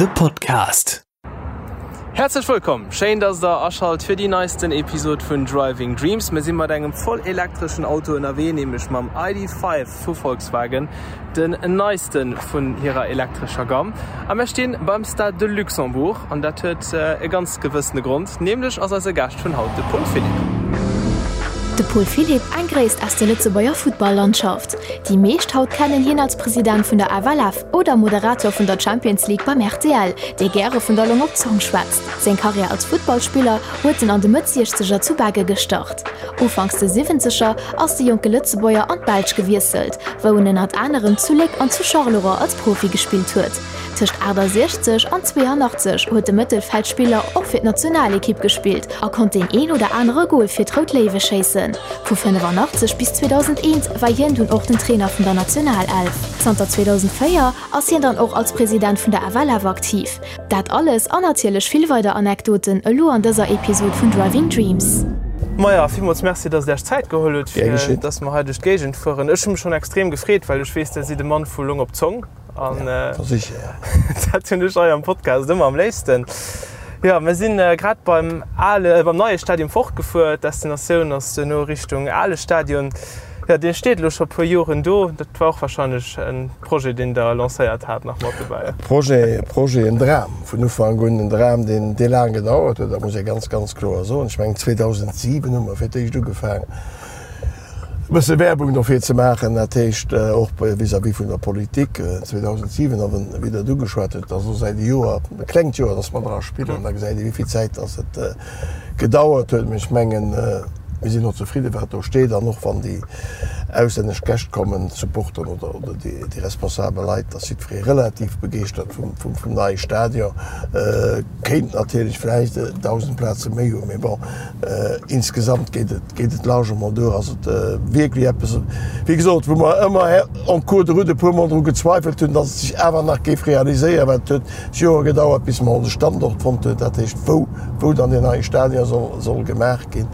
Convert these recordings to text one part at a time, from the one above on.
De Podcast. Häerzlech wëllkomm! Schéin, dass der aschalt fir déi neisten Episod vun Driving Dreams. Mir si mat engem voll elektreschen Auto ënnerwee, nämlech mam ID.5 vu Volkswagen, den neiste vun hirer elektrescher Gamm. A mir stinn beim Stade de Luxembourg an dat huet e ganz gewëssene Grond, nämlech ass eise Gaascht vun haut de Paul Philipp. De Paul Philipp, eng Gréisst aus der Lëtzebuerger Futtball-Landschaft. Déi meescht haut kennen hien als President vun der FLF oder Moderator vun der Champions League beim rtl, dee gäre vun der Long op d'Zong schwätzt. Seng Karriär als Futtballspiller huet en an de Mëtt Siechzeger zu Begge gestart. Ufanks de Siwwenzeger ass de jonke Lëtzebuerger an d'Belsch gewiesselt, wou en ënnert anerem zu Léck an zu Charleroi als Profi gespillt huet. Tëscht 68 an 82 huet de Mëttelfeldspiller och fir d'Nationalekipp gespillt a konnt deen een oder anere Gol fir d'Rout Léiwe schéissen. Vu 85 bis 2001 war hien dunn och den Trainer vun der Nationalelf. Zanter 2004 ass hien dann och als President vun der FLF aktiv. Dat alles an natierlech vill weider Anekdoten elo an dëser Episod vun Driving Dreams. Maja, villmools Merci, dass Der Iech Zäit geholl hutt, fir dass mer hei duerch d'Géigend fueren. Ech hu mech schonn extrem gefreet, well ech weess, Der sidd e Mann vu Long op Zong. An dat hunn ech hei am Podcast ëmmer am léifsten. Jo, mir sinn grad beim ale, beim neie Stadion fortgefuer. D'Destinatioun ass duerno Richtung ale Stadion. Jo, dee steet elo scho puer Joren do. Dat war och warscheinlech e Projet, deen Der lancéiert hat, nach mat dobäi. Projet, Projet, en Dram vun Ufank un, en Dram, deen, dee laang gedauert huet, dat muss ee ganz, ganz kloer soen. Ech mengen, 2007 hu mer fir d'éischt ugefaang, e bësse Werbung dofir ze maachen, dat heescht och vis-à-vis vun der Politik. 2007, a wéi Der et ugeschwat hutt, ass elo säit e Joer, e klengt Joer, datt mer dra spillen, da gesäit ee wéi vill Zäit datt et gedauert huet. Mee ech mengen, mir sinn och zefridde wat do steet an och wann déi auslännesch Gäscht kommen, d'Supporteren oder déi responsabel Leit, ass jiddweree relativ begeeschtert vum neie Stadion. Kéint natierlech vläicht 1.000 Plaze méi hunn, mee bon, insgesamt geet et geet et largement duer. Ass et wierklech eppes, wéi gesot, wou mer ëmmer en cours de route e puermol dru gezweifelt hunn, datt et sech awer nach géif realiséieren, well et huet Jore gedauert, bis mer onse Standort fonnt hunn, dat heescht wou wou dann deen neie Stadion soll soll gemaach ginn,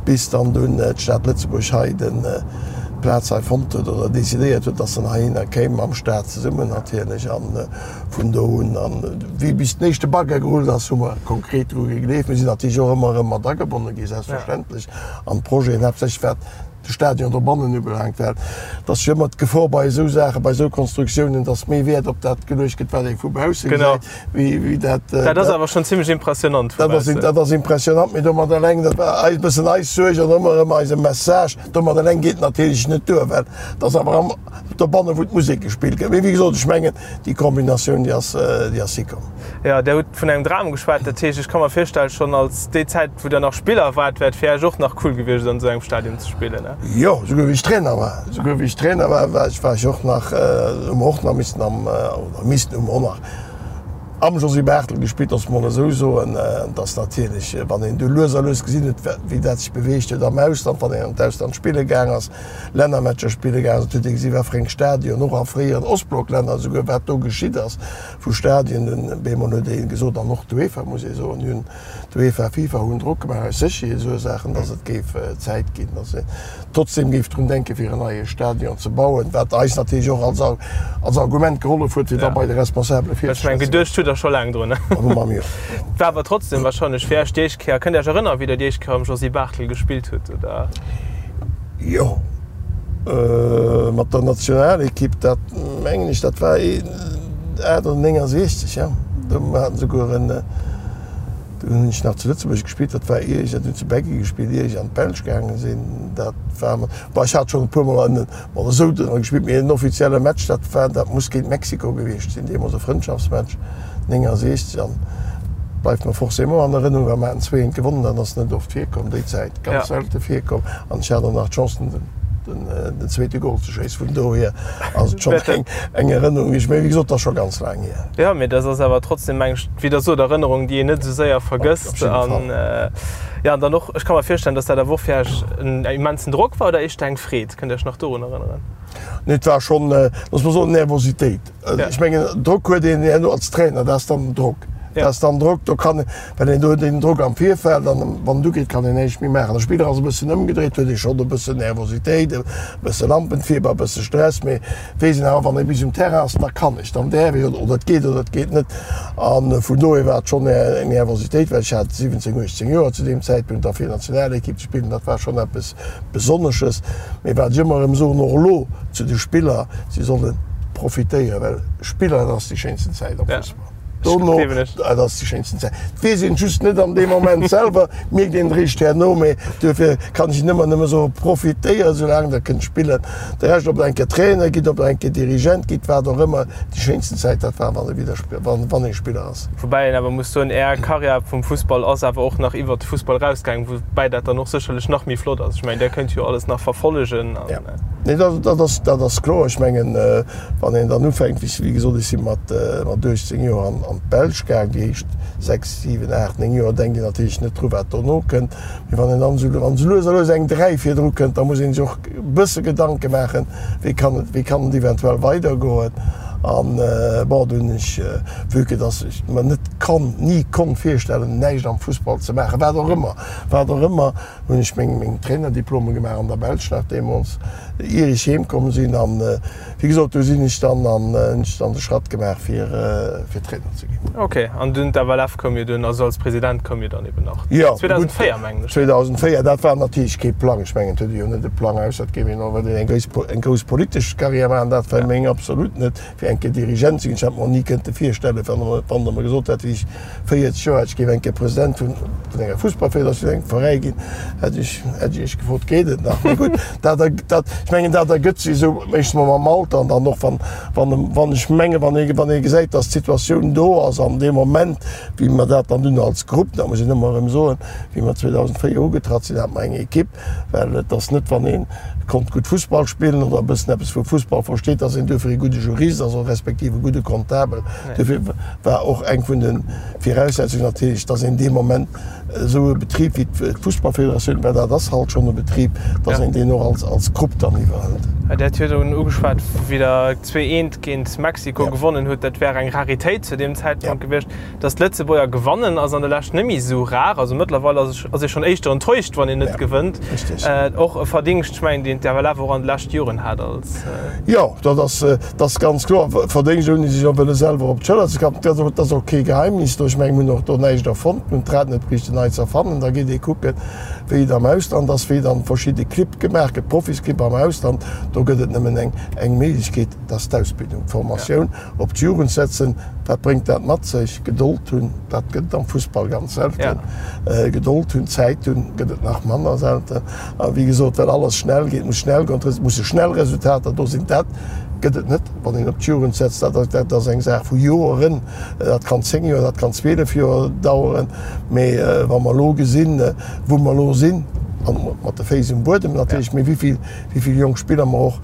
bis dann dunn d'Stad Lëtzebuerg hei den d'Plaz hei fonnt huet oder decidéiert huet, datt se heihinner kéim, mam Staat zesummen natierlech. An vun do un, an wéi bis den éischte Bagger gerullt ass, hu mer konkret dru gegleeft. Mir sinn natierlech och ëmmer erëm mat agebonne gi selbstverständlech an d'Projeten, haaptsächlech wat de Stadion dobannen ubelaangt, well et ass jo ëmmer d'Gefor bei esou Saachen, bei esou Konstruktiounen, datt méi Wäert op dat geluecht gëtt, wat ee vu bausse gesäit, wéi, wéi dat. Dat ass awer schonn zimlech impressionant vu baussen. Dat ass impressionant, mee domat eleng, dat war eis e bëssen eis Suerg an ëmmer erëm eise Message, domat eleng geet et natierlech net duer, well et ass awer am dobannen, wou d'Musek gespillt gëtt. Mee wéi gesot, ech mengen, déi Kombinatioun, déi ass, déi ass hikomm. Jo, Der hutt vun engem Dram geschwat. Dat heescht, ech ka mer virstellen, schonn als déi Zäit, wou Der nach Spiller waart, wär et fir Iech och nach cool gewiescht, an esou engem Stadion ze spillen, ne? Jo, souguer wéi ech Trainer war. Souguer wéi ech Trainer war, war ech, war ech och nach, hu mer och nach missen am, oder missen, hu mer och nach am Josy Barthel gespillt, loosse mer mol esou soen. Et ass natierlech, wann een du lues a lues gesinn huet, wéi dat sech beweegt huet am Ausland, wann een an d'Ausland spille gaang ass, Lännermatcher spille gaangen ass, huet ee gesi wat fir eng Stadion, och a fréieren Ostblocklänner esouguer, wat do geschitt ass vu Stadien. Dunn bemol huet ee gesot, an och d'UEFA muss ee soen, déi hunn, d'UEFA, FIFA hunn Drock gemaach aus Sécherheetsursaachen, datt et géif Zäit ginn, datt een trotzdem géif drun denken, fir en neie Stadion ze bauen, wat eis natierlech och als als Argument gehollef huet, fir da bei de Responsabele Ech mengen, geduecht hutt Der scho laang drun. War awer trotzdem wahrscheinlech fir Iech déi éischt Kéier. Kënnt Dir Iech erënneren, wéi Der déi éischt Kéier am Josy Barthel gespillt hutt, oder? Jo, mat der Nationalekipp, dat mengen ech, dat war 8 oder 69, jo. Do haten se souguer en, do hunn ech nach zu Lëtzebuerg gespillt, dat war ier ech, dat hunn zu Beggen gespillt, ier ech an d'Belsch gaange sinn. Dat war mat, bon, ech hat schonn e puermol an mat esou dran gespillt, mee en offizielle Match, dat war, dat muss géint Mexiko gewiescht sinn, deemools e Frëndschaftsmatch. 69 an bleift mer forcément an Erënnung, well mer haten 2 eent gewonnen, dat ass net oft virkomm déi Zäit, ganz selte virkomm an ech hat och nach d'Chance den den zweete Gol ze schéissen, vun dohier ass et schonn eng eng Erënnung, déi ech, mee wéi gesot, dat ass scho ganz laang hier. Jo, mee dat ass awer trotzdem, meng ech, wéi Der sot, Erënnerung, déi een net esou séier vergësst an jo, an dann och, ech ka mer virstellen, datt dat awer och fir Iech en immensen Drock war oder éischter eng Freed? Kënnt Dir Iech nach dorun erënneren? Nee, et war schonn, looss mer soen, Nervositéit. Ech mengen, Drock huet een herno als Trainer, dat ass dann den Drock. Dat ass dann Drock, do kann, well een do huet een Drock am Virfeld an wann en ugeet, kann een näischt méi maachen. De Spiller ass e bëssen ëmgedréit, huet ee schonn e bëssen Nervositéit, e bësse Lampenfieber, e bësse Stress, mee weess een awer, wann ee bis um Terrain ass, da kann ech, dann däerf ech oder et geet oder et geet net. A vun dohier war et schonn eng Nervositéit, well ech hat 17, 18 Joer zu deem Zäitpunkt a fir Nationalekipp ze spillen, dat war schonn eppes Besonnesches. Mee wat ech ëmmer erëm soen, och elo zu de Spiller, si solle profitéieren, well Spiller, dat ass déi schéinsten Zäit am Fussball. Dono, dat ass déi schéinsten Zäit. Et weess een just net an deem Moment selwer, mierkt een eréischt herno. Mee duerfir kann ech ëmmer nëmme soen, profitéiert esoulaang der kënnt spillen. De Rescht, ob der eng Kéier Trainer gitt, ob der eng Kéier Dirigent gitt, wat och ëmmer, déi schéinsten Zäit, dat war, wann ee wieder, wann ee Spiller ass. Woubäi een awer muss soen, Är Karriär vum Fussball ass awer och nach iwwert de Fussball erausgaangen, woubäi dat dann och sécherlech nach méi flott ass. Ech mengen, Der kënnt jo alles nach verfollegen. Jo, nee, dat ass, dat ass kloer. Ech mengen, Wann een dann ufänkt, wéi gesot, ech si mat 18 Joer an d'Belsch gaang, déi éischt 6, 7, 8, 9 Joer denkt een natierlech net dru wat dono kënnt. Mee wann een dann esou, wann esou lues a lues eng 3 virdru kënnt, da muss ee sech och e bësse Gedanke maachen, wéi kann et, wéi kann et eventuell weidergoen. An bon, do hunn ech, vue que dass ech mer net konnt, ni konnt virstellen, näischt am Fussball ze maachen, wat och ëmmer, wat och ëmmer, hunn ech meng, meng Trainerdiplome gemaach an der Belsch nach deemools, ier ech heem komm sinn. An wéi gesot, do sinn ech dann an hunn ech dann de Schratt gemaach fir fir Trainer ze ginn. Ok, an dunn d'FLF koum jo dunn, also als President koum jo dann eben nach Jo, gutt, 2004 mengen ech. 2004, dat war natierlech kee Plang. Ech mengen, et huet ee jo net e Plang, ausser et géif een och wëllen eng grouss eng grouss politesch Carrière maachen. Dat war meng absolut net, fir eng Kéier Dirigent ze ginn. Ech hätt mer och ni kënnte virstellen, wann wann Der mer gesot hätt, wéi ech 40 Joer hätt, ech géif eng Kéier President vun enger Fussballfederatioun, engem Veräi ginn, hätt ech, hätt ech Iech gefrot, Geet et nach? Mee gutt, dat, dat, ech mengen, dat ergëtt sech esou meeschtens mam Alter an dann och wann, wann, wann ech mengen, wann ee, wann ee gesäit, datt d'Situatioun do ass an deem Moment, wéi mer dat dann dunn als Grupp, dat muss een ëmmer erëm soen, wéi mer 2004 ugetratt sinn, hate mer eng Ekipp, Well et ass net, wann ee konnt gutt Fussball spillen oder e bëssen eppes vu Fussball versteet, datt een duerfir ee gudde Jurist ass oder respektiv e gudde Comptabel. Duerfir war och eng vun de Viraussetzungen natierlech, datt een dee Moment esou e Betrib wéi d'Fussballfederatioun, well dat ass halt schonn e Betrib, datt een deen och als Grupp dann iwwerhëlt. Dir hat virdrun ugeschwat, wéi Der 2, 1 géint Mexiko gewonnen hutt, dat wär eng Raritéit zu deem Zäitpunkt gewiescht. Dass d'Lëtzebuerger gewannen ass an der Lescht net méi esou rar. Also mëttlerweil ass ass ee schonn éischter enttäuscht, wann een net gewënnt. Och e Verdingscht, ech mengen, deen d'FLF och an de leschte Joren hat als. Jo, dat ass, dat ass ganz kloer. Verdéngscht, ouni sech och wëlle selwer op d'Schëller ze klappen. Dat ass och kee Geheimnis do. Ech mengen, mir hunn och do näischt erfonnt. Mir hunn d'Rad net bräichten nei ze erfannen. Da geet ee kucken, wéi et am Ausland ass, wéi dann verschidde Clibb gemaach gëtt, Profisclibb am Ausland. Do gëtt et nëmmen eng, eng Méiglechkeet, dat ass d'Ausbildung, d'Formatioun. Op d'Jugend setzen, wat bréngt dat mat sech? Gedold hunn, dat gëtt et am Fussball ganz selten. Gedold hunn, Zäit hunn, gëtt et nach manner selten. A wéi gesot, well alles schnell geet, muss schnell goen, et musse schnell Resultater do sinn. Dat gëtt et net, wann een op d'Jugend setzt. Dat, dat ass eng Saach vu Joeren. Dat kann 10 Joer, dat kann 12 Joer daueren. Mee wa mer elo gesinn, wou mer elo sinn, an mat de Féiss um Buedem natierlech, mee wéi vill, wéi vill jonk Spiller mer och,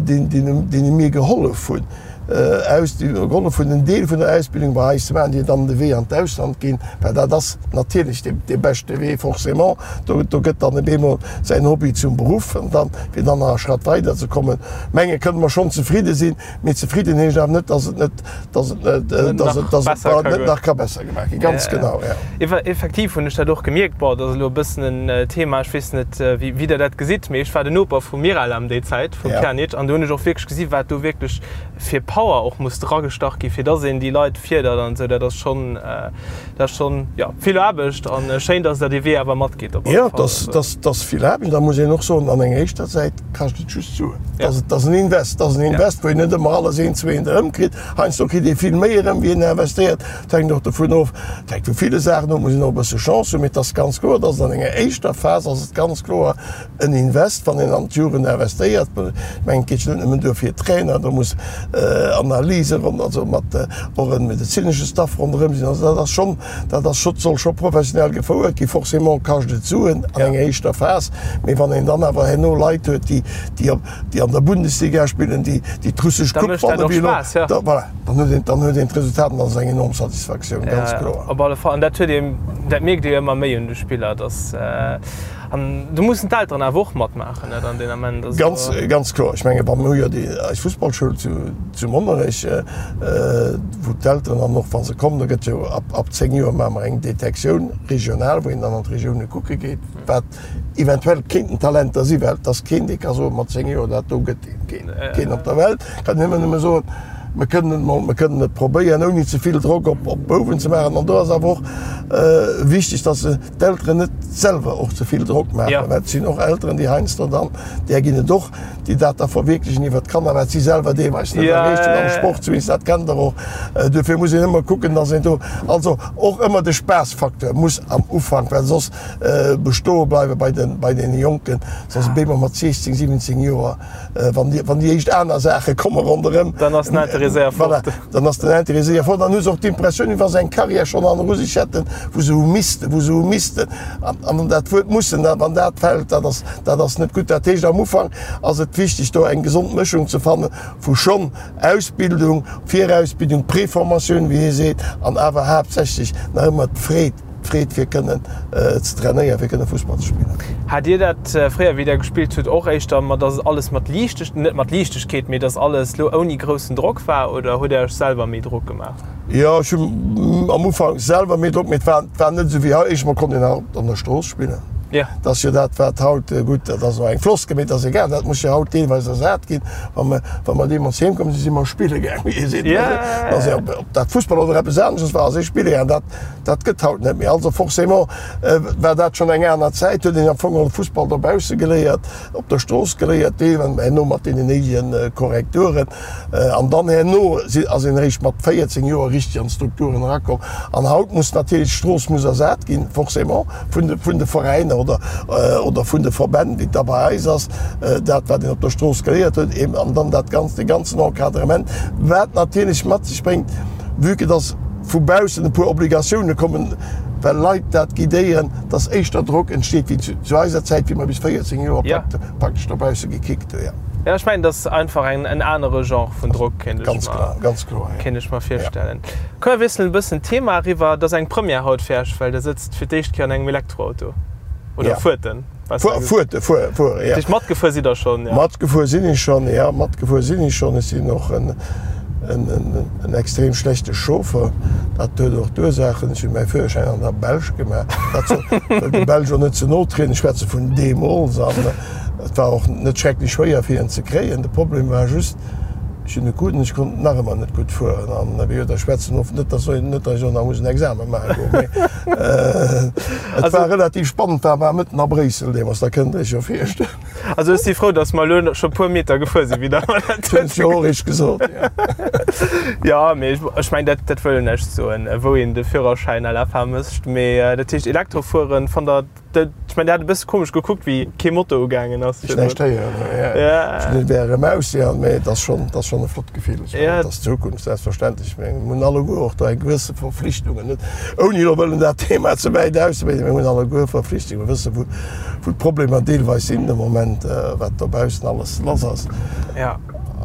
deene mir gehollef hunn, aus, déi gehollef hunn, en Deel vun der Ausbildung bei eis ze maachen, déi dann de Wee an d'Ausland ginn, well dat ass natierlech dee beschte Wee, forcément. Do, do gëtt dann op eemol säin Hobby zum Beruff an dann, fir dann nach e Schratt weider ze kommen, menge kënne mer schonn zefridde sinn. Mee zefridden heescht awer net, dass et net, dass et net, dass et, dass et net nach ka besser gemaach ginn. Ganz genau, ja. Effektiv hunn ech dat och gemierkt. Bon, dat ass elo e bëssen en Thema, ech weess net, wéi, wéi Der dat gesitt, mee ech war den Noper vum Miralem déi Zäit, vum Pjanic, an do hunn ech och wierklech gesi wat do wierklech fir Power och muss dragestach gi fir dass een déi Leit fierdert an esou. Dat ass schonn, dat ass schonn, jo, vill Aarbecht an schéin, dass Der dee Wee awer matgeet op alle Fall. Jo, dat ass vill Aarbecht. Da muss een och soen, an enger éischter Zäit kascht et just Suen. Dat ass en Invest, dat ass en Invest, wou een net ëmmer alles eent zu eent erëmkritt. Heiansdo kritt ee vill méi erëm, wéi een investéiert. Dat hänkt och dovun of, dat hänkt vu ville Saachen of, muss een och e bësse Chance hunn. Mee et ass ganz kloer, dass et an enger éischter Phas ass et ganz kloer en Invest, wann een an d'Jugend investéiert. Ech mengen, et geet jo net nëmmen duer fir Trainer, do muss Analyse ronn, also mat och e medezinesche Staff ronderëm sinn. Also dat ass schonn, dat ass scho, soll scho professionell gefouert ginn. Forcément kascht et Suen an enger éischter Phas, mee wann een dann awer herno Leit huet, déi, déi op, déi an der Bundesliga spillen, déi, déi d'russesch Coupe wannen, wéi elo, da, voilà, dann huet een, dann huet een d'Resultat an dat ass eng enorm Satisfaktioun, ganz kloer. Op alle Fall. An dat huet een, dat mierkt ee jo ëmmer méi un de Spiller, dass. An do mussen d'Elteren awer och matmaachen, net an deen Ament. Also. Ganz, ganz kloer. Ech menge mir hu jo déi eis Fussballschoul zu, zu Monnerech, wou d'Elteren dann och, wa se kommen, do gëtt jo ab, ab 10 Joer maache mer eng Detektioun regional, wou een dann an d'Regioune kucke geet, wat eventuell kéinten Talenter sinn, well et ass keen, dee ka soen, mat 10 Joer, dat do gëtt een. Keen, keen op der Welt kann nëmmen nëmme soen, mer kënnen et mol, mer kënnen et probéieren, ouni ze vill Drock op, op d'Bouwen ze maachen. An do ass awer och wichteg, dass se d'Elteren net selwer och ze vill Drock maachen, ja. well et sinn och Elteren, déi heiansdo dann, där ginn et och, déi dat da verwierklechen iwwer d'Kanner, wat si selwer deelweis net ja, erreecht hunn am Sport zumindest, dat kennt Der och. Äh, dofir muss een ëmmer kucken, dass een do, also och ëmmer de Spaassfacteur muss am Ufank, well soss äh, bestoe bleiwe bei den, bei den Jonken, soss ja. mat 16, 17 Joer Wann déi, wann déi éischt aner Saache komme ronderëm, dann ass den Intérêt séier fort. Voilà, dann ass den Intérêt séier fort. Dann hu se och d'Impressioun, wéi wa se eng Carrière schonn hanneru sech hätten, wou se hu missten, wou se hu missten. An, an dat Wuert mussen, dat, wann dat fält, dat ass, dat ass net gutt. Dat heescht, am Ufank ass et wichteg, do eng gesond Mëschung ze fanne vu schonn Ausbildung, Virausbildung, Préformatioun, wéi ee seet, an awer haaptsächlech nach ëmmer d'Freed, D'Freed fir kënnen ze trainéieren, fir kënne Fussball ze spillen. Hat Dir dat fréier, wéi Der gespillt hutt, och éischter mat, dass alles mat Liichteg, net mat Liichtegkeet, mee dass alles lo ouni groussen Drock war, oder hutt Der Iech selwer méi Drock gemaach? Jo, ech hunn am Ufank selwer méi Drock, mee et war, et war net esou wéi haut. Éischt mol konnt een nach an der Strooss spillen. Jo. Dat ass jo dat, wat haut, gutt, dat ass elo eng Floskel, mee et ass egal, dat muss jo haut deelweis ersat ginn. Wa mer, wa mer deemools heem komm sinn, si mer spille gaang, wéi ee seet. Jo. Also, ob dat Fussball oder eppes anesches war, ass ee spille gaang. Dat Dat gëtt haut net méi. Also forcément war dat schonn eng aner Zäit, huet een am Fong och Fussball dobausse geléiert, op der Strooss geléiert, deelweis herno mat deenen néidege Korrekturen. An dann herno ass een eréischt mat 14 Joer richteg an d'Strukturen erakomm. An haut muss natierlech d'Strooss muss ersat ginn, forcément vun de, vun de Veräiner oder, oder vun de Verbänn, wéi et da bei eis ass, dat wat een op der Strooss geléiert huet, eben an dann dat Ganzt, dee ganzen Encadrement, wat natierlech mat sech bréngt, vue que dass, vu baussen e puer Obligatioune kommen, well Leit dat guidéieren, dass éischter Drock entsteet wéi zu eiser Zäit, wéi mer bis 14 Joer praktesch dobausse gekickt hu. Jo, ech mengen, dat ass einfach en anere Genre vun Drock, kéint ech mer virstellen. Komm, mir wiesselen e bëssen d'Thema eriwwer. Et ass eng Première haut fir Iech, well Der sëtzt fir d'éischt Kéier an engem Elektroauto oder fuert en. Fuerte, fuere, fuere, ja. Dich matgefuer sidd der schonn, ja? Matgefuer sinn ech schonn, ja, matgefuer sinn ech schonn. Ech sinn och en, en, en, en extrem schlechte Chauffer. Dat huet och d'Ursaachen, ech hunn mäi Führerschäin an der Belsch gemaach. Dat soll, wëll de Belsch och net ze no trieden, ech schwätze vun deemools. An et war och net schrecklech schwéier fir en ze kréien. De Problem war just, Ech hunn e krut an ech konnt nach ëmmer net gutt fueren. An wéi gesot, ech schwätzen of, net dass net dass ech och nach muss en Examen maache goen, mee et war relativ spannend, war war mëtten a Bréissel deemools, da kënnt Der Iech jo virstellen. Also ech si frou, dass mer elo scho puer Meter gefuer sinn, wéi Der mer dat hutt. Hunn ech jo och eréischt gesot, jo. Jo, mee ech mengen, dat dat wëll näischt soen, wou een de Führerschäin à la fin mécht. Mee dat heescht, Elektrofueren fannt Der Ech mein, der hat e bësse komesch gekuckt, wéi kee Motor ugaangen ass. Ech näischt héieren, ja. Ech hunn et wär erëm aus, ja, mee et ass schonn, et ass schonn e flott Gefill. Ech mengen, et ass d'Zukunft, selbstverständlech. Mir hunn alleguer och do eng gewësse Verflichtungen, net ouni elo wëllen dat Thema ze wäit auszebreeden, mir hunn alleguer Verflichtungen. Mir wëssen, wou, wou d'Problemer deelweis sinn de Moment, wat dobaussen alles lass ass.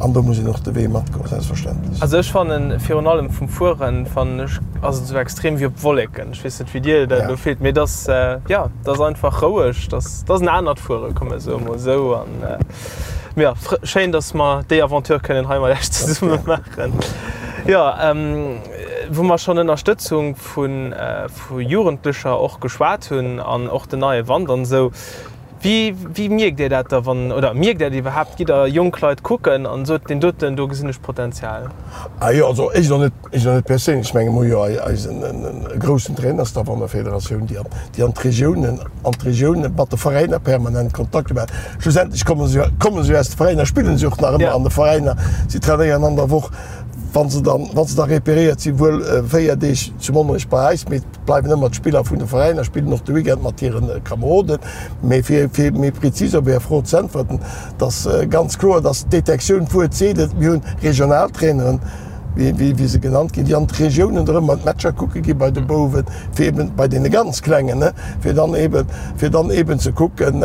An do muss een och de Wee matgoen, selbstverständlech. Also ech fannen, virun allem vum Fueren, fannen ech, ass et esou extrem wéi op Wolleken. Ech weess net, wéi dir dat elo fillt, mee et ass, jo, et ass einfach roueg, et ass, et ass en anert Fueren, komm mer soe mol esou. An mee jo, schéin, datt mer déi Aventure kënnen hei mat iech zesumme maachen. Jo, wou mer schonn Ënnerstëtzung vu vu Jugendlecher och geschwat hunn an och den neie Wand an esou, Wéi, wéi mierkt Dir dat da wann, oder mierkt Dir dat iwwerhaapt? Gitt Der jonk Leit kucken an sot, deen doten, do gesinn ech Potenzial? Ah jo, also ech elo net, ech elo net perséinlech. Ech menge mer hu jo eisen e groussen Trainerstaff an der Federatioun, déi an, déi an d'Regiounen, an d'Regiounen mat de Veräiner permanent Kontakt hunn. Well schlussendlech komme se jo, komme se jo aus de Veräiner, spillen se och nach ëmmer an de Veräiner. Si trainéieren an der Woch, wa se dann, wa se da reperéiert sinn, wuel 4 Deeg zu Monnerech bei eis, mee bleiwen ëmmer d'Spiller vun de Veräiner, spillen och de Weekend mat hire Kameroden. Mee fir fir méi prezis op Är Fro ze äntwerten, et ass ganz kloer, dass d'Detektioun, d'Wuert seet et, mir hunn Regionaltraineren. wéi se genannt ginn, déi an d'Regiounen erëm an d'Matcher kucke gi bei de Bouwen, fir eben bei deene ganz Klengen, ne, fir dann eben, fir dann eben ze kucken,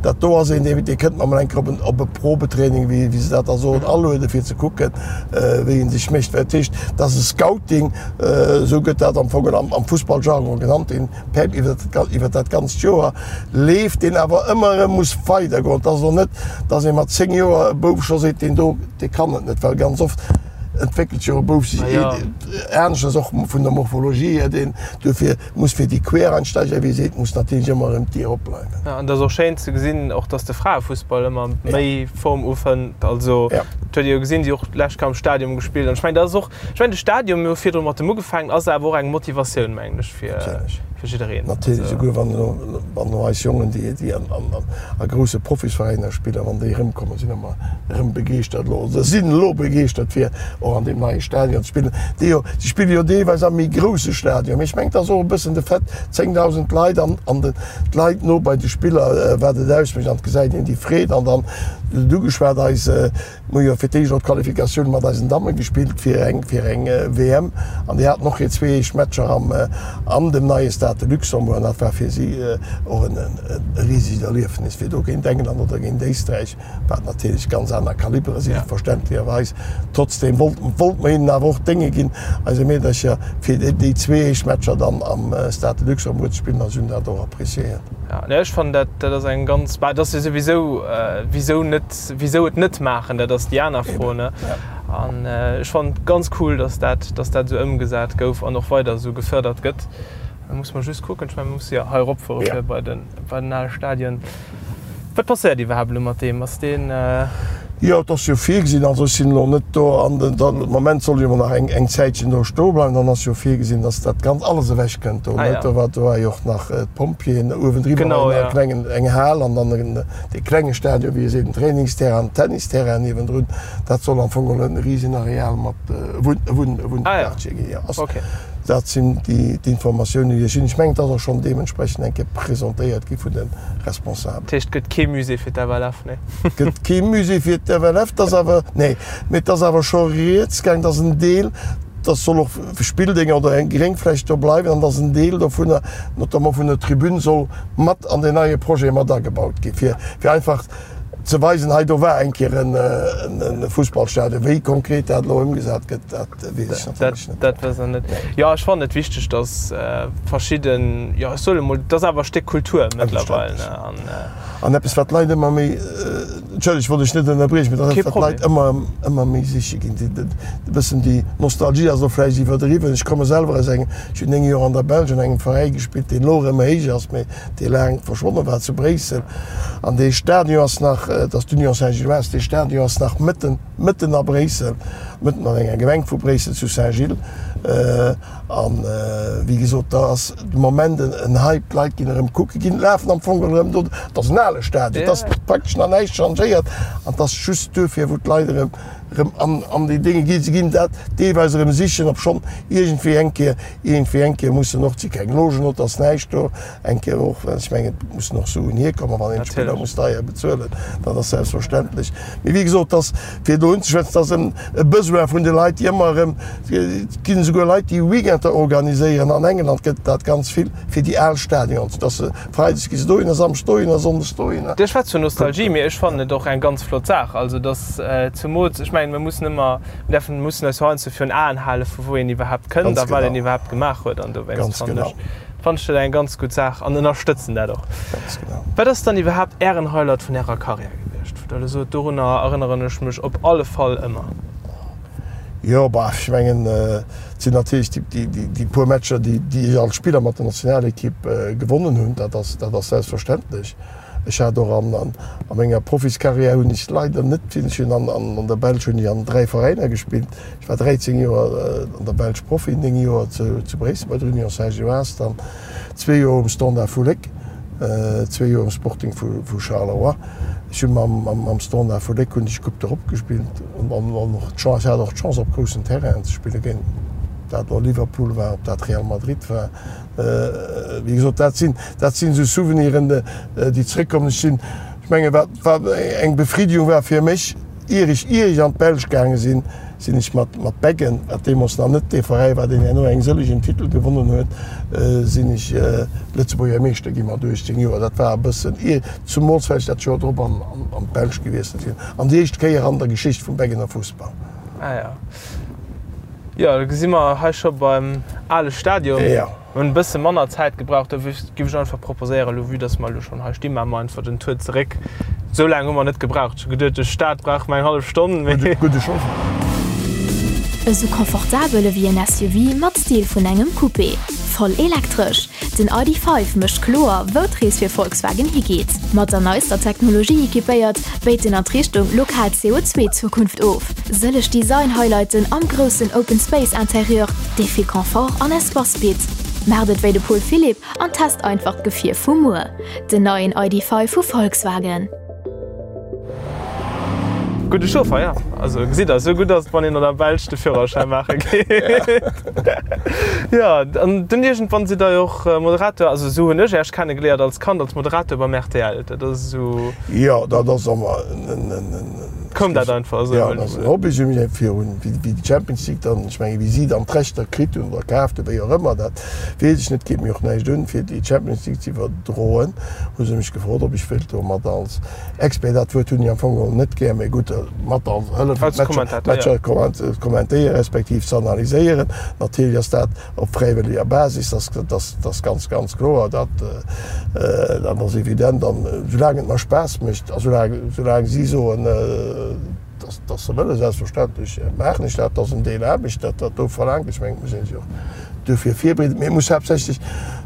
dat do ass een, dee, dee kënnt mer mol eng Kéier op en, op e Probetraining, wéi, wéi se dat da soen, alueden, fir ze kucken, wéi ee sech mécht. Dat heescht, dat ass e Scouting, esou gëtt dat am Fong am, am Fussballjargon genannt, deen per, iwwer dat, iwwer dat ganzt Joer leeft, deen awer ëmmer erëm muss weidergoen. Et ass elo net, dass ee mat 10 Joer e Bouf scho seet, deen do, dee kann et net, well ganz oft entwéckelt jo e Bouf sech aneschters, och vun der Morphologie hier, deen dofir muss fir déi Quereinsteiger, wéi ee seet, muss natierlech ëmmer erëm d'Dier opbleiwen. Jo, an et ass och schéin ze gesinn, och datt de Fraefussball ëmmer méi Form ufënnt. Also dat huet ee jo gesinn, déi och d'lescht Kéier am Stadium gespillt. An ech mengen, dat ass och, ech mengen de Stadium, mir hu virdru mat dem ugefaangen, ass awer och eng Motivatioun, mengen ech, fir jiddereen. Natierlech, esouguer wann elo, wann elo eis Jongen, déi, déi an, an, a grousse Profisveräiner spillen, wann déi erëmkommen, sinn ëmmer erëm begeeschtert elo, oder sinn elo begeeschtert, fir och an deem neie Stadion ze spillen. Déi jo, si spille jo deelweis am méi grousse Stadion, mee ech mengen, et ass och e bëssen de Fait, 10.000 Leit an, an de, d'Leit no bei de Spiller, wat et ausmécht an et gesäit een déi Freed an dann, du huet ugeschwat, eis, Mir hu jo fir d'éischt och d'Qualifikatioun mat eisen Damme gespillt fir eng fir eng WM an déi haten och hir zwee éischt Matcher am an dem neie Stade de Luxembourg an dat war fir si och en e risegt Erliefnis fir do géint England oder géint Éisträich, wat natierlech ganz aner Kalibere sinn, verständlecherweis. Trotzdeem wollt wollt mer hinnen awer och d'Dénge ginn, eise Meedercher, fir déi zwee éischt Matcher dann am Stade de Luxembourg ze spillen a si hunn dat och appréciéiert. Jo, ech fannen dat dat ass eng ganz, bah, dat ass jo souwisou, wisou net? Wisou et net maachen, dat ass déi aner Fro. An ech fannen et ganz cool, dass dat, dass dat esou ëmgesat gouf an och weider esou gefërdert gëtt. Da muss mer just kucken, ech mengen, mer musse jo hei eropfuere fir bei den, bei den ale Stadion. Wat passéiert iwwerhaapt elo mat deem? Ass deen. Jo, et ass jo virgesinn, also ech sinn elo net do an den, de Moment soll jo emol nach eng, eng Zäitchen do stoe bleiwen. Dann ass jo virgesinn, dass dat Ganzt alles ewech kënnt do, net? Do war, do war jo och nach d'Pompjeeën uewendriwwer, war jo nach e klengen, eng Hal an dann en, Dee klenge Stadion, wéi ee seet, den Trainingsterrain, den Tennisterrain niewendrun, dat soll am Fong geholl e risen Areal mat Wunnquartier ginn. Jo, ass, dat sinn déi d'Informatiounen, déi ech hunn. Ech mengen, et ass och schonn deementsprechend eng Kéier presentéiert gi vun de Responsabelen. Dat heescht, et gëtt kee Musée fir d'FLF, nee? Et gëtt kee Musée fir d'FLF, et ass awer, nee, mee et ass awer scho rieds gaang, dass en Deel, dass soll och Spilldénger oder eng Gréngfläch do bleiwen an dass en Deel dovunner, notamment vun der Tribün, soll mat an deen neie Projet mat agebaut gi fir fir einfach ze weisen, hei do war eng Kéier en Fussballstadion. Wéi konkret dat elo ëmgesat gëtt, dat weess ech natierlech net. Dat weess Der net. Jo, ech fannen et wichteg, datt verschidden, jo ech soen emol, et ass awer e Stéck Kultur mëttlerweil, ne, an. An eppes wat d'Leit ëmmer méi, entschëllegt, ech wollt dech net ënnerbriechen, mee dat ass eppes wat d'Leit ëmmer ëmmer méi siche ginn, déi e bëssen déi Nostalgie ass elo vläicht iwwerdriwwen. Ech komme selwer aus engem, ech hunn 9 Joer an der Belsch an engem Veräi gespillt, deen elo erëm héich ass, mee dee laang verschwonne war zu Bréissel. An dee Stadion ass nach, et ass d'Union Saint-Gilloise, dee Stadion ass nach mëtten, mëtten a Bréissel, mëtten an enger Gemeng vu Bréissel zu Saint-Gilles. An wéi gesot, da ass de Moment en Hype, d'Leit ginn erëm kucke ginn, lafen am Fong erëm do. Et ass en ale Stadion, et ass praktesch nach näischt changéiert an et ass just duerfir, wou d'Leit erëm erëm an an déi Dénge ginn. Se ginn dat deelweis erëm sichen, obschonn iergendwéi eng Kéier, iergendwéi eng Kéier mussen och, et si keng Logen do, et ass näischt do, eng Kéier och, well ech mengen, et mussen och Suen hierkommen, wann een d'Spiller muss deier bezuelen, dat ass selbstverständlech. Mee wéi gesot, et ass, fir do unzeschwätzen, et ass en e Besoin vun de Leit, déi ëmmer erëm, Et ginn esouguer Leit, déi Weekender organiséieren. An England gëtt et dat ganz vill, fir déi al Stadions, dass se freides gi se dohinner, samschdes dohinner, sonndes dohinner. Dir schwätzt vun Nostalgie, mee ech fannen et och eng ganz flott Saach. Also dass zemools, ech mengen, mir mussen ëmmer, mir däerfen, mussen eis jo heiansdo virun Aen halen, vu wou een iwwerhaapt kënnt a wat een iwwerhaapt gemaach huet. An dowéinst fannen ech, fannen ech dat eng ganz gutt Saach an ënnerstëtzen dat och. Wat ass dann iwwerhaapt Ären Highlight vun Ärer Karriär gewiescht, wou Der elo sot, dorunner erënneren ech mech op alle Fall ëmmer? Jo, bah, ech mengen, et sinn natierlech déi puer Matcher, déi ech als Spiller mat der Nationalekipp gewonnen hunn. Dat ass, dat ass selbstverständlech. Ech hat och an a menger Profiskarriär hunn ech leider net vill, ech hunn an der Belsch hunn ech an 3 Veräiner gespillt. Ech war 13 Joer an der Belsch Profi, 9 Joer zu Bréissel bei der Union Saint-Gilloise, dann zwee Joer um Standard vu Léck, zwee Joer um Sporting vu Charleroi. Ech hu mam Standard vu Léck hunn ech Coupe d'Europe gespillt an och d'Chance, ech hat och d'Chance op groussen Terrainen ze spillen, géint ob dat elo Liverpool war, ob dat Real Madrid war. Wéi gesot, dat sinn, dat sinn esou Souveniren, déi zréckkommen. Ech sinn, ech mengen, wat, wat eng Befriedigung war fir mech, ier ech, ier ech an d'Belsch gaange sinn. Sinn ech mat mat Beggen, wat deemools nach net dee Veräi war, deen herno eng sëllegen Titel gewonnen huet, sinn ech Lëtzebuerger Meeschter gi mat 18 Joer. Dat war e bëssen ier, zumools well ech dat Joer drop an an d'Belsch gewiesselt sinn. An déi éischt Kéier an der Geschicht vum Beggener Fussball. Ah ja. Jo, da gesi mer hei scho beim ale Stadion. Jo. Mir hunn e bësse manner Zäit gebraucht, da giff ech einfach proposéieren, elo vue dass mer elo schonn hei stinn, maache mer einfach den Tour zeréck. Esou laang hu mer net gebraucht. Ech hu geduet, duerch d'Stad brauche mer eng hallef Stonn, mee. Gudde Chauffer. Esou confortabel ewéi en SUV mat Stil vun engem Coupé. Voll elektresch. Den ID. 5 mécht kloer, wou d'Rees fir Volkswagen higeet. Mat der neister Technologie equipéiert, béit en an d'Richtung lokal CO2-Zukunft of. Sëlleg Design-Highlighten am groussen Open Space Interieur, dee vill Confort an Espace bitt. Maacht et wéi de Paul Philipp an test einfach d'Gefier vu muer, den neien ID. 5 vu Volkswagen. Gudde Chauffer, ja. Also gesitt der, esou gutt ass et, wann een an der Belsch de Führerschäin maache geet. Jo, an dunn iergendwann sidd der jo och Moderator, also esou hunn ech Äech kennegeléiert als Kand, als Moderator beim rtl. Dat ass esou. Jo, dat ass ëmmer en, en, en. Koum dat einfach esou? Jo, dat ass en Hobby. Si hunn virun, wéi déi Champions League dann, ech menge wéi si dann d'Rechter kritt hunn oder kaaft hunn, wéi och ëmmer, dat weess ech net, geet mir och näischt un, fir déi Champions League ze iwwerdroen, hu se mech gefrot, ob ech wéilt do mat als Expert, dat Wuert hunn ech am Fong geholl net gär, mee gutt, mat als hëllefen, d'Matcher ze kommentéieren, respektiv ze analyséieren. Natierlech ass dat op fräiwëlleger Basis, dat ass ganz, ganz kloer, dat ass evident. An soulaang et mer Spaass mécht a soulaang si soen, dass se wëllen, selbstverständlech maachen ech dat. Dat ass en Deel Aarbecht, dat dat do verlaangt. Ech mengen, et muss ee sech och duerfir virbereeden. Mee et muss haaptsächlech,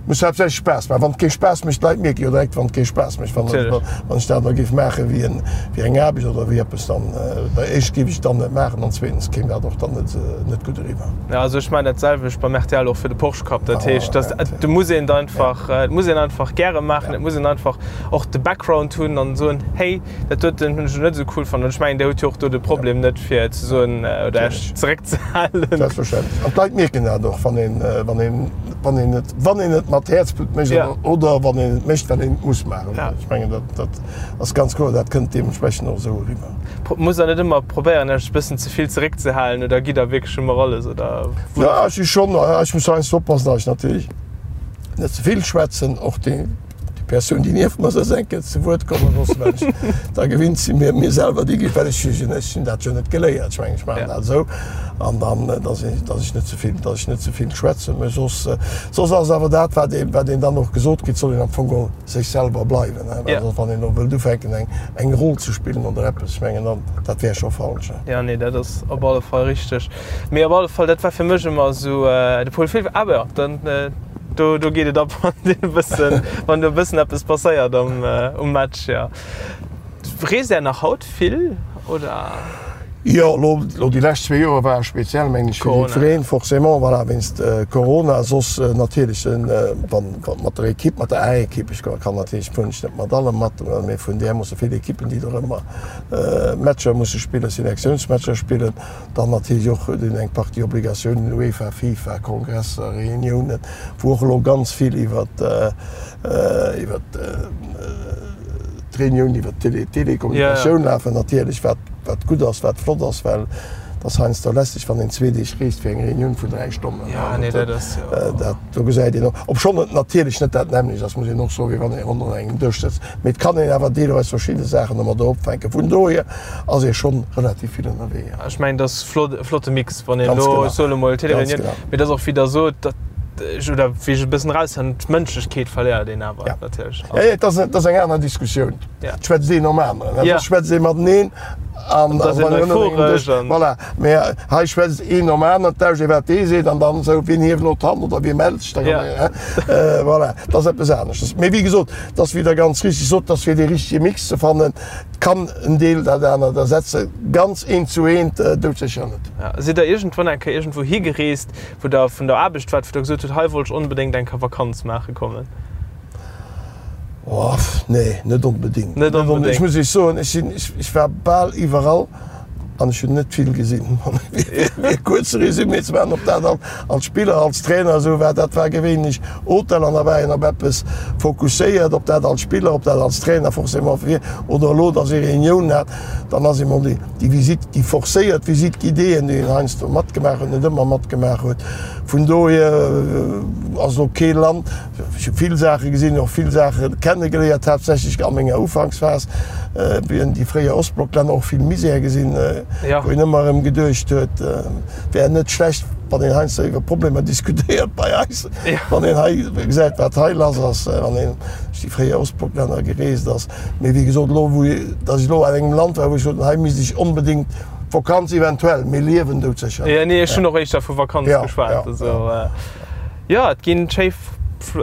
muss haaptsächlech Spaass maachen. Wann et kee Spaass mécht, d'Leit mierke jo direkt, wann et kee Spaass mécht. Wann ech dat da géif maache wéi eng Aarbecht oder wéi eppes, dann éischt géif ech et dann net maachen an zweetens kéim dat och dann net gutt eriwwer. Jo, also ech maachen dat selwecht beim rtl och fir de Porsche Cup. Dat heescht, dass do muss een et einfach, et muss een einfach gäre maachen, et muss een einfach och de Background hunn an soen, hey, dat doten hunn ech elo net esou cool fonnt. An ech mengen, Dir hutt jo och do de Problem net fir ze soen oder Iech zeréckzehalen. Selbstverständlech. An d'Leit mierken dat och, wann een, wann een, wann een et, wann een et mat Häerzblutt mécht oder wann een et mécht, well een et muss maachen. Ech mengen, dat, dat ass ganz kloer, dat kënnt deementsprechend och esou eriwwer. Musst Der net ëmmer probéieren, Iech e bëssen ze vill zeréckzehalen oder gitt Der wierklech ëmmer alles oder? Jo, ech si schonn, ech muss heiansdo oppassen, datt ech natierlech net ze vill schwätzen, och déi Persoun, déi nieft mer sëtzt, eng Kéier zu Wuert komme loossen, well ech da gewinnt sinn, mir mir selwer déi gi, well ech ech hunn dat jo net geléiert. Ech mengen, ech maachen dat esou an dann, datt ech datt ech net ze vill, datt ech net ze vill schwätzen. Mä soss, soss ass awer dat, wat ee wat een dann och gesot kritt, soll een am Fong geholl sech selwer bleiwen, hein, well soss wann een elo wëllt ufänken eng eng Roll ze spillen oder eppes, ech mengen dann, dat wär scho falsch, hein. Jo, nee, dat ass op alle Fall richteg. Mee op alle Fall, dat war fir mech ëmmer esou de Paul Philipp. Awer jo, dann do do geet et ab, wann deen e bëssen, wann do e bëssen eppes passéiert am um Match, jo. Reest Är nach haut vill, oder? Jo, elo elo déi lescht zwee Joer ware speziell, mengen ech, fir jiddwereen, forcément, voilà, wéinst Corona. Soss natierlech, wann mat der Ekipp, mat der A-Ekipp, ech kann natierlech fueren ech net mat alle mat, mee vun där musse vill Ekippen, déi do ëmmer Matcher musse spillen, Selektiounsmatcher spillen, dann natierlech och huet een eng Partie Obligatiounen, UEFA, FIFA, Kongresser, Reuniounen, wou och elo ganz vill iwwert iwwert d'Reunioun iwwert d'Telekommunikatioun lafen natierlech, wat wat gutt ass, wat flott ass, well et ass heiansdo lästeg, wann een zwee Deeg reest fir eng Reunioun vun dräi Stonnen. Dat do gesäit een och, obschonn et natierlech net dat nämmlecht ass, muss een och soen, wéi wann ee ronderëm engem Dësch sëtzt, mee et kann een awer deelweis verschidde Saachen domadder opfänken. Vun dohier ass ee schonn relativ vill ënnerwee. Ech mengen, dat ass flott, e flotte Mix, wann een elo, ech soen emol, Téléréunion, mee dat ass och, wéi Der sot, dat ech, oder wéi ech e bëssen eraushören, d'Mënschlechkeet verléiert een awer natierlech. Jo, jo, et ass, et ass eng aner Diskussioun. Et schwätzt een nom aneren, et schwätzt ee mateneen an Et ass een euphoresch an. Voilà, mee hei schwätzt een nom aneren, et lauscht ee wat dee seet an dann esou, wien hieft elo d'Hand oder wie mellt sech da. Voilà, et ass eppes aneschters. Mee wéi gesot, et ass, wéi Der ganz richtig sot, et ass fir dee richtege Mix ze fannen. Kann en Deel dat anert ersetzen? Ganz eent zu eent doudsécher net. Sidd Der iergendwann eng Kéier iergendwou higereest, wou Der vun der Aarbecht waart, wou Der gesot hutt, hei wollt ech onbedéngt eng Kéier Vakanz maache kommen? Oh, nee, net onbedéngt. Net onbedéngt. Ech muss Iech soen, ech sinn, ech war bal iwwerall. An ech hunn net vill gesinn. Fir e kuerze Resumé ze maachen, ob dat als Spiller, als Trainer esou war, dat war gewéinlech Hotel an da war een op eppes fokusséiert, ob dat als Spiller, ob dat als Trainer forcément wier oder elo, datt ee Reunioun hat, dann ass emol déi Visite, déi forcéiert Visite guidéeën, déi een heiansdo matgemaach huet, net ëmmer matgemaach huet. Vun dohier ass elo kee Land, Ech hu vill Saache gesinn, och vill Saache kennegeléiert, haaptsächlech a menger Ufanksphas, wéi een déi fréier Ostblocklänner, och vill Misär gesinn, wou een ëmmer erëm geduecht huet, wär net schlecht, wann een heiansdo iwwer Problemer diskutéiert bei eis, wann een hei gesäit, wat hei lass ass, wann een duerch déi fréier Ostblocklänner gereest ass. Mee wéi gesot, elo wou, datt ech elo an engem Land war, wou ech sot, hei misst ech onbedéngt Vakanz eventuell, mee liewen doudsécher net. Nee, ech hunn och éischter vu Vakanz geschwat. Jo, et ginn schéi,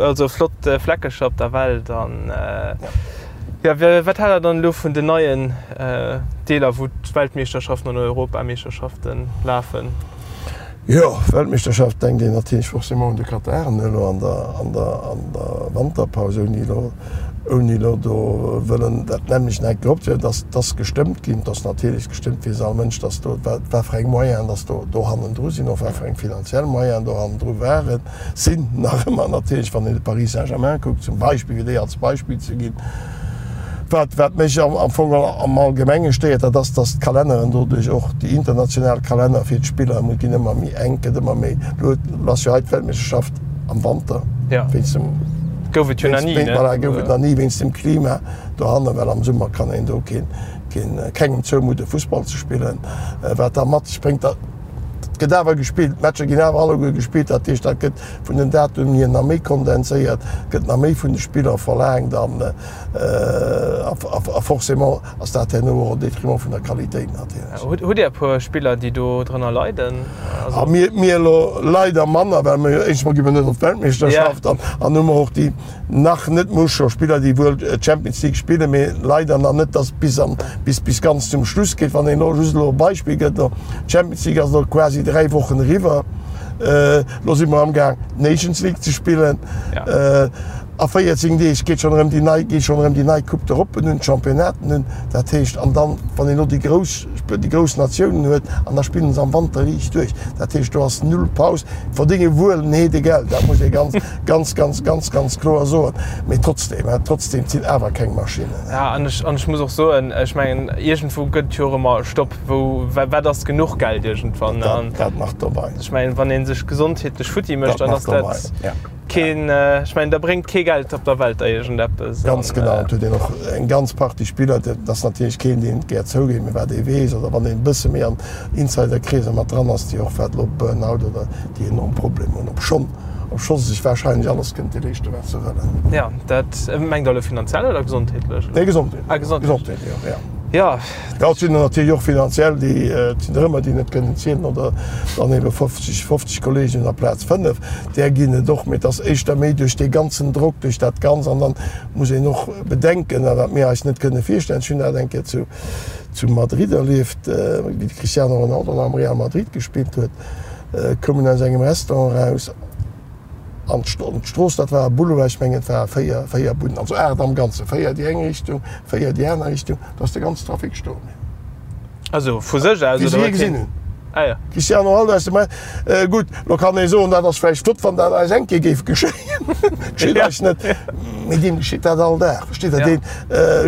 also flott Fleckecher op der Welt an jo, wat haalt der dann elo vun den neien Deeler wou d'Weltmeeschterschaften an Europameeschterschaften lafen? Jo, Weltmeeschterschaft denkt een natierlech forcément un de Katar elo an der an der an der Wanterpaus, ouni elo ouni elo do wëllen dat nämmlecht nach eng Kéier opzehuelen, dass dass gestëmmt ginn, dass natierlech gestëmmt weess all Mënsch, dass do wat wat fir eng Moyenen dass do do hannendru sinn, och wat fir eng finanziell Moyenen do hannendru waren, sinn nach ëmmer natierlech, wann een de Paris Saint-Germain kuckt zum Beispill, fir déi als Beispill ze ginn. Wat wat mech am am Fong am Allgemenge stéiert, dat ass, dass d'Kalenneren doduerch och, déi international Kalenner fir d'Spiller ginn ëmmer méi enk, gëtt ëmmer méi, elo ass jo hei d'Weltmeeschterschaft am Wanter, wéinst dem, Gouf et jo nach ni, ne? Voilà, gouf et nach ni wéinst dem Klima dohannen, well am Summer kann een do keen, keen, kengem zoumudde Fussball ze spillen, wat da mat sech bréngt, datt, et gëtt awer gespillt, d'Matcher ginn awer alleguer gespillt, dat heescht, dat gëtt vun den Datumen hier nach méi kondenséiert, gëtt nach méi vun de Spiller verlaangt an a forcément ass dat herno och au détriment vun der Qualitéit natierlech. Hutt Dir e puer Spiller, déi do drënner leiden? A mir, mir elo leider manner, well mir jo éischtens mol gi mir net op d'Weltmeeschterschaft an an hu mer och déi nach net muss scho Spiller, déi wuel d'Champions League spillen, mee leider nach net, datt bis an bis bis ganz zum Schluss geet. Wann een elo just elo e Beispill gëtt, elo d'Champions League ass elo quasi 3 Wochen eriwwer, elo si mer amgaang d'Nations League ze spillen. A 14 Deeg geet schonn erëm déi nei, geet schonn erëm déi nei Coupe d'Europe un, d'Championnaten un. Dat heescht, an dann, wann een elo déi grouss, déi grouss Natiounen huet, an da spillen se am Wanter riicht duerch. Dat heescht, do ass null Paus. Verdénge wuel en Heedegeld, dat muss ee ganz, ganz, ganz, ganz, ganz kloer soen. Mee trotzdem, trotzdem, et sinn awer keng Maschinnen. Ja, an ech, an ech muss och soen, ech mengen, iergendwou gëtt et jo och ëmmer e Stopp, wou, wat ass genuch Geld iergendwann? Dat, dat nach dobei. Ech mengen, wann ee sech gesondheetlech futti mécht, dann ass dat. Keen, ech mengen, da bréngt kee Geld op der Welt der iergendeppes. Ganz genau, et huet een och eng ganz Partie Spiller, dat ass natierlech keen, deen et gär zougeet, mee wat ee weess oder wann een e bësse méi an Insiderkreeser mat dran ass, déi och wat elo Burnout oder déi enorm Problemer hunn, obschonn, obscho se sech warscheinlech alles kënnte leeschten, wat se wëllen. Jo, dat mengt Der elo finanziell oder gesondheetlech? Nee, gesondheetlech. Ah, gesondheetlech. Gesondheetlech, jo, jo. Jo. Jo, et sinn der natierlech och finanziell, déi, et sinn der ëmmer, déi net kënnen zielen oder dann ebe 50, 50 Kolleegen amplaz 5, där ginn et och, mee et ass éischter méi duerch dee ganzen Drock, duerch dat Ganz. An dann muss een och bedenken, a wat mir eis net kënne virstellen, ech hunn dat eng Kéier zu, zu Madrid erlieft, wéi de Cristiano Ronaldo nach am Real Madrid gespillt huet, koum en aus engem Restaurant eraus, An d'Strooss, dat war e Boulevard, ech mengen et ware 4, 4 Bunnen, also 8 am Ganzen, 4 déi eng Richtung, 4 déi aner Richtung, do ass de ganzen Trafic stoe bliwwen. Also vu sech aus, oder? Wéi se hie gesinn hunn. Ah ja. Cristiano Ronaldo aus dem Re-, gutt, lo kann ee soen, dat ass vläicht flott, wann dat eis eng Kéier géif geschéien, geschitt eis net, mee deem geschitt dat all Dag, versteet Der? Deen,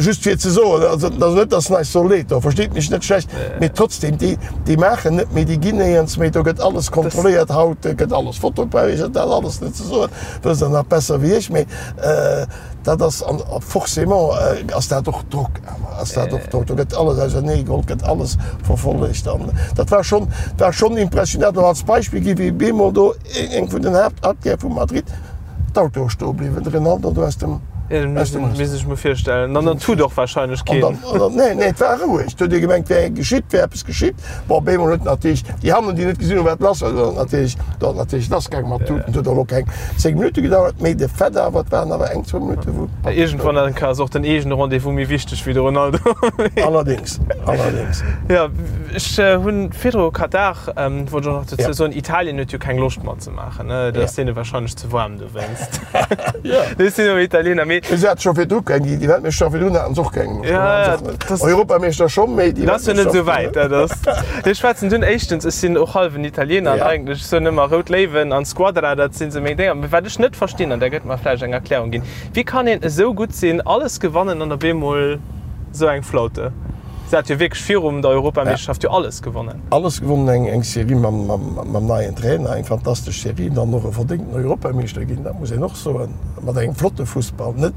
just fir ze soen, also et ass net, datt en eis soll leed doen, versteet mech net schlecht, mee trotzdem, déi, déi maachen net méi, déi ginn néierens méi, do gëtt alles kontrolléiert haut, gëtt alles fotografiert, dat alles net ze soen, wësst Der nach besser wéi ech, mee dat ass, an forcément ass dat och Drock awer, ass dat och Drock, do gëtt alles ausernee geholl, gëtt alles verfollegt an dat war schonn, war schonn impressionant. An als Beispill gi wéi bemol do eng vun den Haaptartère vu Madrid, D'Autoe stoe bliwwen, de Ronaldo do aus dem. Aus dem. Misst ech mer virstellen. An dann tut och wahrscheinlech keen. An dann, nee, nee, et war roueg. Et huet ee gemengt, wär geschitt, wär eppes geschitt. Bon, op eemol huet natierlech déi hannen, déi net gesinn hunn, wat lass war, do ass natierlech, do ass natierlech lassgaangen mat Tuten. Et huet och elo keng 10 Minutte gedauert, mee de Fait awer, et waren awer eng, zwou Minutte wou. Iergendwann eng Kéier ass och den eegene Rendez-vous méi wichteg wéi de Ronaldo. Allerdéngs, allerdéngs. Jo, ech hunn virdru Katar, wollt ech och nach dozou soen, Italien huet jo keng Loscht matzemaachen. Dat ass deene warscheinlech ze waarm dowéinst. Ech sinn och Italiener. Mee. Si hate scho virdru keng, déi Weltmeeschterschaft virdrun haten se och keng. Ja, ja. Europameeschter schonn, mee déi. Dat ass jo net esou wäit, dat ass. Ech schwätzen dunn éischtens, ech sinn och hallwen Italiener an eigentlech, ech soen ëmmer Rout Léiwen an Squadra, dat sinn esou meng Dénger. Mee wat ech net verstinn, an där gëtt mer vläicht eng Erklärung ginn, Wéi kann een esou gutt sinn, alles gewannen an op eemol esou eng Flaute? Se hat jo wierklech virum der Europameeschterschaft jo alles gewonnen. Alles gewonnen, eng eng Serie mam mam neien Trainer, eng fantastesch Serie, dann och e verdéngten Europameeschter ginn, dat muss een och soen, mat engem flotte Fussball, net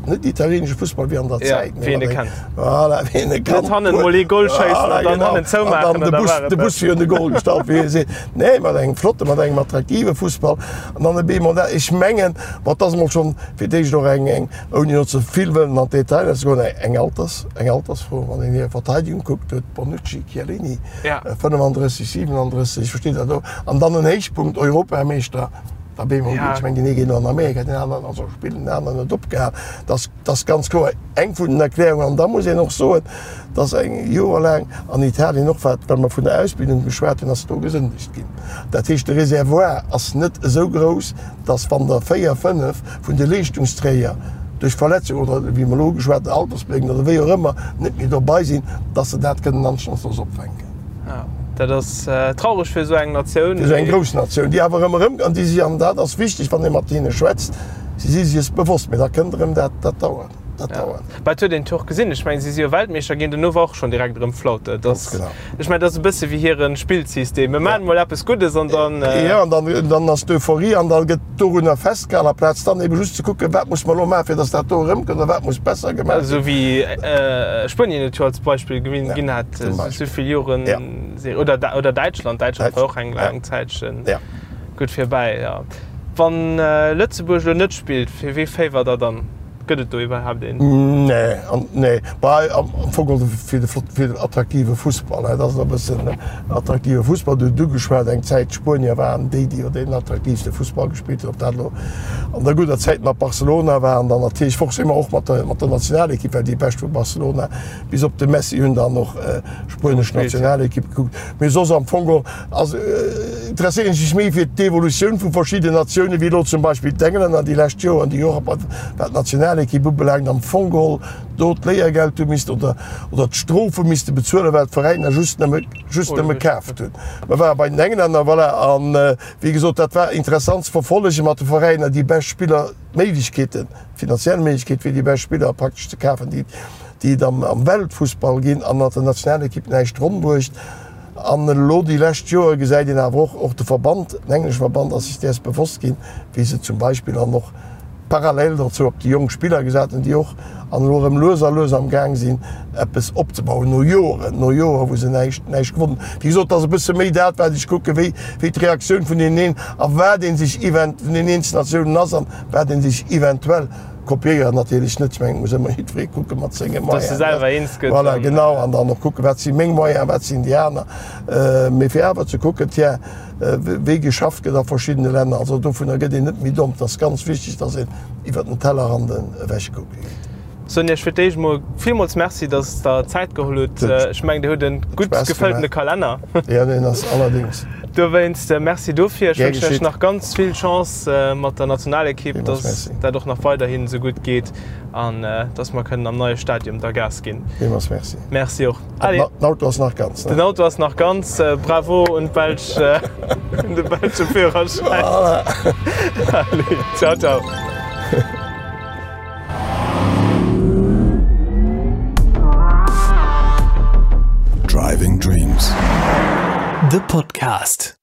net italienesche Fussball wéi an der Zäit, wéi een e kennt. Voilà, wéi een e kannt. Net hannen mol ee Goal schéissen an dann hannen zoumaachen an da war et dat. De Bus virun de Goal gestallt, wéi ee seet. Nee, mat engem flotte, mat engem attraktive Fussball an dann e bemol dat. Ech mengen, bon, et ass emol schonn fir d'éischt och eng eng Ouni elo ze vill wëllen an d'Detailer ze goen, eng Alters, eng Altersfro, wann een hir Verteidigung kuckt, huet Bonucci, Chiellini, 35, 37, ech verstinn dat och, an dann en Héichpunkt, Europameeschter, da bemol geet, ech mengen, deen ee geet elo an Amerika, deen aneren ass och spillen, deen aneren huet opgehal. Dat ass, dat ass ganz kloer eng vun den Erklärungen. An da muss een och soen, dass eng joerlaang an Italien och, wat, well mer vun der Ausbildung geschwat hunn, ass do gesëndegt ginn. Dat heescht, de Réservoir ass net esou grouss, dass wann der 4, 5 vun de Leeschtungsträger duerch Verletzung oder, wéi mer elo ugeschwat hunn, altersbedéngt oder wéi och ëmmer, net méi dobei sinn, dass se dat kënnen anstandslos opfänken. Jo, dat ass traureg fir esou eng Natioun. Fir esou eng grouss Natioun, déi awer ëmmer erëm, an déi si, an dat ass wichteg, wann ee mat hinne schwätzt, si si sech bewosst, mä da kënnt erëm dat, dat dauert. Dat dauert. Mä et huet een et jo och gesinn. Ech mengen, si si jo Weltmeeschter ginn, dono war och schonn direkt erëm Flaute. Et ass, ech mengen, et ass e bësse wéi hire Spillsystem. Mir maachen emol eppes Guddes an dann. Jo, an dann, dann ass d'Euphorie an da gëtt dorunner festgehalen, amplaz dann ebe just ze kucken, wat muss mer elo maachen, fir datt dat do erëmkënnt oder wat muss besser gemaach ginn. Esou wéi Spuenien et jo als Beispill ginn hat, esou vill Joren, oder, oder Däitschland. Däitschland war och eng laang Zäitchen gutt virbäi, jo. Wann Lëtzebuerg elo net spillt, fir wee féiwert Der dann? Gëtt et do iwwerhaapt een? Nee, nee. Bah, am Fong geholl fir de flott, fir den attraktive Fussball, dat ass e bëssen attraktive Fussball. Du hutt ugeschwat, eng Zäit d'Spuenier waren déi, déi jo deen attraktiivste Fussball gespillt hunn. Ob dat elo an der gudder Zäit mat Barcelona war an dann natierlech forcément och mat der, mat der Nationalekipp, well déi Bescht vu Barcelona bis op de Messi hunn dann och spuenesch Nationalekipp gekuckt. Mee soss am Fong geholl Also interesséieren ech mech méi fir d'Evolutioun vu verschidden Natiounen, wéi elo zum Beispill d'Englänner déi lescht Joer an déi Joer wat d'Nationalekipp ubelaangt am Fong geholl do d'Léiergeld hu missten oder oder d'Strof hu misste bezuelen, well d'Veräiner just nëmme just nëmme kaaft hunn. Mer ware bei den Englänner, voilà, an wéi gesot, dat war interessant ze verfollegen mat de Veräiner, déi bescht Spiller, d'Méiglechkeeten, d'finanziell Méiglechkeet fir déi bescht Spiller praktesch ze kafen, déi déi et am am Weltfussball ginn an hat der Nationalekipp näischt ronn bruecht. An elo déi lescht Joer gesäit een awer och, och de Verband, den englesche Verband ass sech däers bewosst ginn, wéi se zum Beispill an och parallel dozou op déi jonk Spiller gesat hunn, déi och an elo erëm lues a lues am Gaang sinn eppes opzebauen no Joeren, no Joer wou se näischt, näischt gewonnen hunn. Wéi gesot, et ass e bësse méi dat wat ech kucken, wéi, wéi d'Reaktioun vun deenen een a wat ee sech event, vun den eenzelnen Natiounen ass an wat ee sech eventuell Kopéieren natierlech net, ech mengen, et muss ëmmer jiddweree kucke mat senge Moyenen. Dass e selwer eens gëtt. Voilà, genau, an dann och kucken, wat si meng Moyenen, wat sinn déi aner. Mee fir awer ze kucken, tiens, wéi geschafft gëtt a verschiddene Länner. Also dovunner gëtt een net méi domm. Et ass ganz wichteg, dass een iwwert den Tellerrand ewech kucke geet. Soen Iech fir d'éischt emol villmools Merci, dass Der Zäit geholl hutt. Ech mengen, Dir hutt e gutt gefëlltene Kalenner. Jo, deen ass allerdéngs. Dowéinst Merci dofir. Ech wënschen Iech nach ganz vill Chance mat der Nationalekipp, dass dat och nach weiderhin esou gutt geet an dass mer kënnen am neie Stadium da Gas ginn. Villmools Merci. Merci och. Allez. Den Auto ass nach ganz, ne? Den Auto ass nach ganz. Bravo un d'Belsch, un de belsche Führerschäin. Voilà. Allez, ciao, ciao. Driving Dreams, de Podcast.